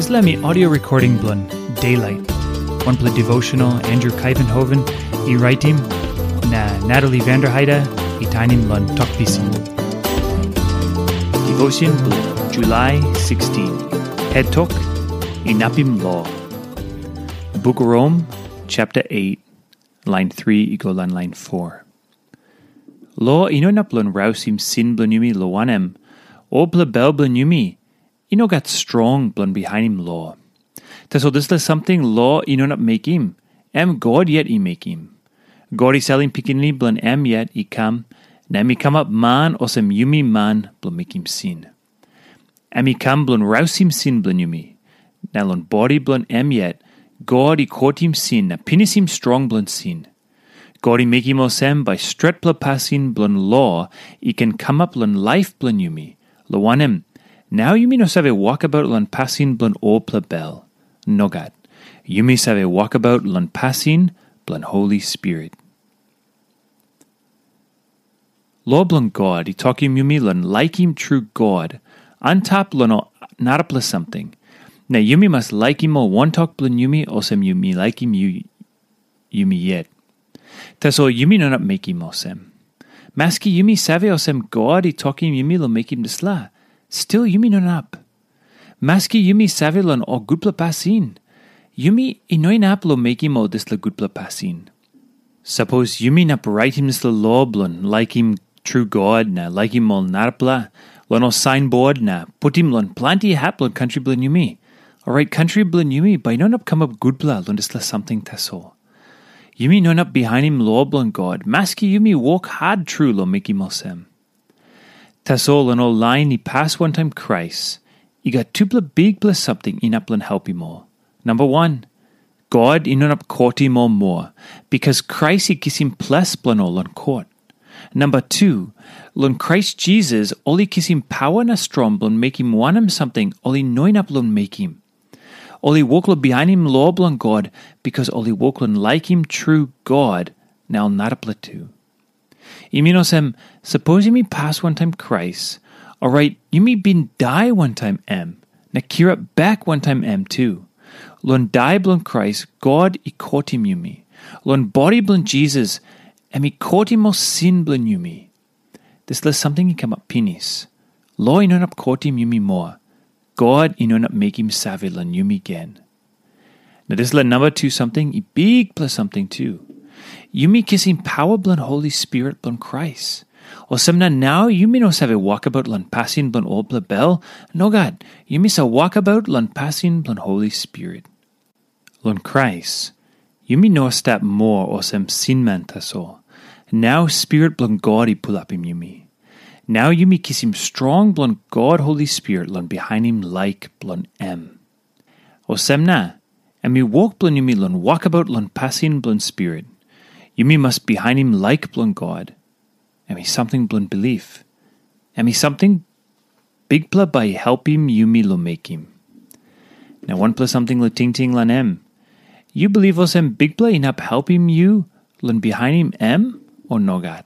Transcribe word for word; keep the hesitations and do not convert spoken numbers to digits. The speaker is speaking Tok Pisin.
Dispela mi audio recording bilong Daylight, wanpela devotional Andrew Kaivenhoven i raitim, na Natalie Vanderheide i tainim long Tok Pisin. Devotion bilong July sixteen. Het tok, Inapim Lo. Buk Rom, chapter eight, line three i go long line four. Lo i no inap long rausim sin bilong yumi, lo wanem, olpela bel bilong yumi i no gat strong bilong bihainim lo. Tasol dispela samting lo i no inap mekim, em God yet i mekim. God i salim Pikinini bilong em yet i kam, na em i kamap man olsem yumi man bilong mekim sin. Em i kam bilong rausim sin bilong yumi. Na long bodi bilong em yet, God i kotim sin na pinisim strong bilong sin. God i mekim olsem bai stretpela pasin bilong lo i ken kamap long laip bilong yumi, lo wanem, nau yumi no save wokabaut long pasin bilong olpela bel. Nogat. Yumi save wokabaut long pasin bilong Holi Spirit. Lo bilong God i tokim yumi long laikim tru God antap long ol narapela samting. Na yumi mas laikim ol wantok bilong yumi olsem yumi laikim yu, yumi yet. Tasol yumi no inap mekim olsem. Maski yumi save olsem God i tokim yumi long mekim dispela, stil yumi no inap. Maski yumi save long ol gutpela pasin, yumi i no inap long mekim ol dispela gutpela pasin. Sapos yumi inap raitim dispela lo bilong laikim tru God na laikim ol narapela long ol sainbord na putim long planti hap long kantri bilong yumi, orait kantri bilong yumi bai i no inap kamap gutpela long dispela samting tasol. Yumi no inap bihainim lo bilong God, maski yumi wok hat tru long mekim olsem. Tasol long ol lain i pas wantaim Krais, i gat tupela bikpela samting inap long helpim ol. Namba wan, God i no inap kotim ol moa, bikas Krais i kisim ples bilong ol long kot. Namba tu, long Krais Jisas ol i kisim pawa na strong bilong mekim wanem samting ol i no inap long mekim. Ol i wok long bihainim lo bilong God, bikas ol i wok long laikim tru God na ol narapela tu. I min olsem, sapos yumi pas wantaim Krais, orait yumi bin dai wantaim em, na kirap bek wantaim em tu. Long dai bilong Krais, God i kotim yumi. Long bodi bilong Jisas, em i kotim ol sin bilong yumi. Dispela samting i kamap pinis. Lo i no inap kotim yumi moa. God i no inap mekim save long yumi gen. Na dispela namba tu samting i bikpela samting tu. Yumi kisim pawa bilong Holi Spirit bilong Krais. Olsem na nau yumi no save wokabaut long pasin bilong olpela bel. Nogat, yumi save wokabaut long pasin bilong Holi Spirit. Long Krais, yumi no stap moa olsem sinman tasol. Nau Spirit bilong God i pulapim yumi. Nau yumi kisim strong bilong God Holi Spirit long bihainim laik bilong em. Olsem na, em i wok bilong yumi long wokabaut long pasin bilong Spirit. Yumi mas bihainim laik bilong God. Em i samting bilong bilip. Em i samting Bikpela bai i helpim yumi long mekim. Na wanpela samting long tingting long em. Yu bilip olsem Bikpela inap helpim yu long bihainim em, o nogat?